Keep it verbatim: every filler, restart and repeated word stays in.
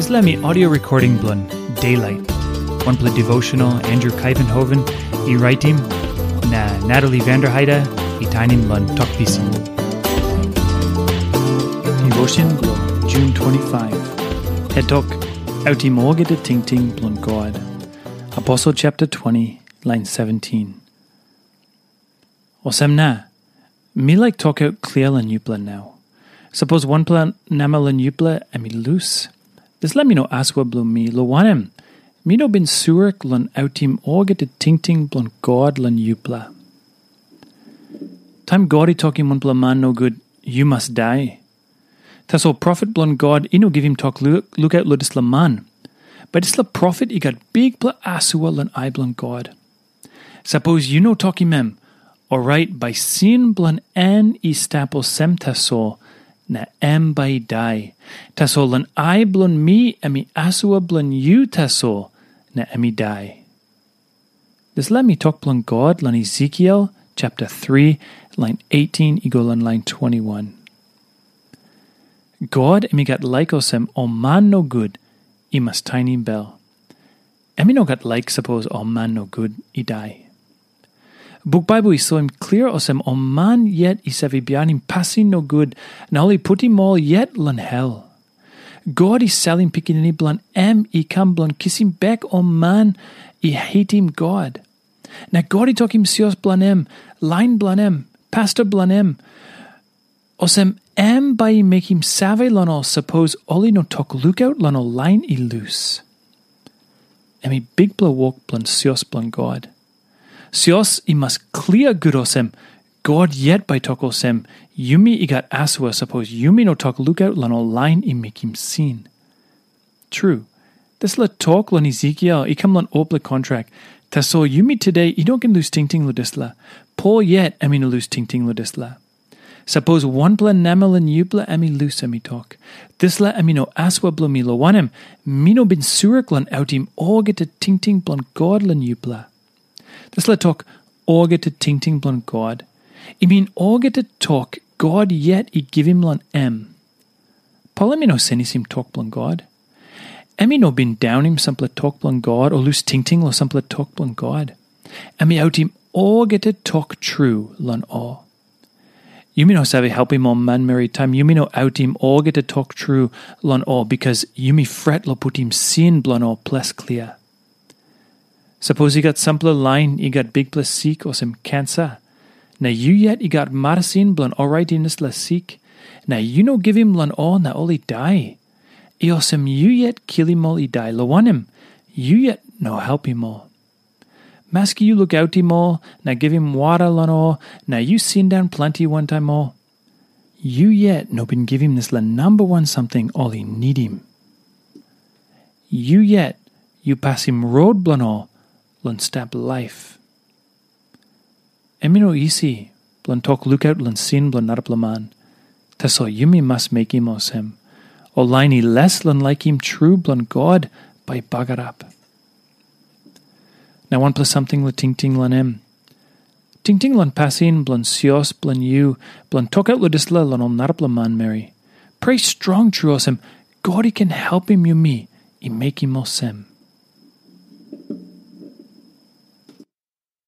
Dispela mi audio recording bilong Daylight, wanpela devotional Andrew Kaivenhoven i raitim, na Natalie Vanderheide i tainim long Tok Pisin. Devotion bilong June twenty-five. Het tok, autim olgeta tingting bilong God. Aposel chapter twenty, line seventeen. Olsem na, mi laik tokaut klia long yupela nau. Sapos wanpela nama long yupela em i lus, dispela mi no asua bilong mi, long wanem, mi no bin surik long autim olgeta tingting bilong God long yupela. Taim God i tokim wanpela man nogut, "Yu mas dai." Tasol profet bilong God i no givim tok lu- lukaut long dispela man. Bai dispela profet i gat bikpela asua long ai bilong God. Sapos yu no tokim em, orait bai sin bilong en i stap olsem tasol, na em bai i dai. Tasol long ai bilong mi em i asua bilong yu tasol, na em i dai. Dispela mi tok bilong God long Ezekiel chapter three, line eighteen i go long line twenty-one. God em i gat laik olsem ol man nogut i mas tainim bel. Em i no gat laik sapos ol man nogut i dai. Buk Baibel i soim klia olsem ol man yet i save bihainim pasin nogut, na ol i putim ol yet long hel. God i salim Pikinini bilong em i kam bilong kisim bek ol man i hatim God. Na God i tokim sios bilong em, lain bilong em, pasta bilong em, olsem em bai i mekim save long ol sapos ol i no tok lukaut long ol lain i lus. Em i bikpela wok bilong sios bilong God. Sios i mas klia gut olsem, God yet bai tok olsem, yumi i gat asua sapos yumi no tok lukaut long ol lain i mekim sin. Tru, dispela tok long Ezekiel i kam long olpela kontrak, tasol yumi today i no ken lus tingting long dispela. Pol yet em i no lus tingting long dispela. Sapos wanpela namel long yupela em i lus, em i tok, dispela em i no asua bilong mi, long wanem, mi no bin surik long autim olgeta tingting bilong God long yupela. Dispela tok, olgeta tingting bilong God, i min olgeta tok God yet i givim long em. Pol em i no senisim tok bilong God. Em i no bin daunim sampela tok bilong God o lus tingting long sampela tok bilong God. Em i autim olgeta tok tru long ol. Yumi no save helpim ol manmeri taim yumi no autim olgeta tok tru long ol, bikas yumi fret long putim sin bilong ol ples klia. Sapos i gat sampela lain i gat bikpela sik olsem kansa, na yu yet i gat marasin bilong oraitim dispela sik, na yu no givim long ol na ol i dai, i olsem yu yet kilim ol i dai, long wanem, yu yet no helpim ol. Maski yu lukautim ol na givim wara long ol, na yu sindaun planti wantaim ol, yu yet no bin givim dispela namba wan samting ol i nidim. Yu yet yu pasim rot bilong ol long stap laip. Em i no isi bilong tok lukaut long sin bilong narapela man. Tasol yumi mas mekim olsem, ol lain i les long laikim tru bilong God bai i bagarap. Na wanpela samting long tingting long em. Tingting long pasin bilong sios bilong yu bilong tokaut long dispela long ol narapela manmeri. Prea strong tru olsem, God i ken helpim yumi i mekim olsem.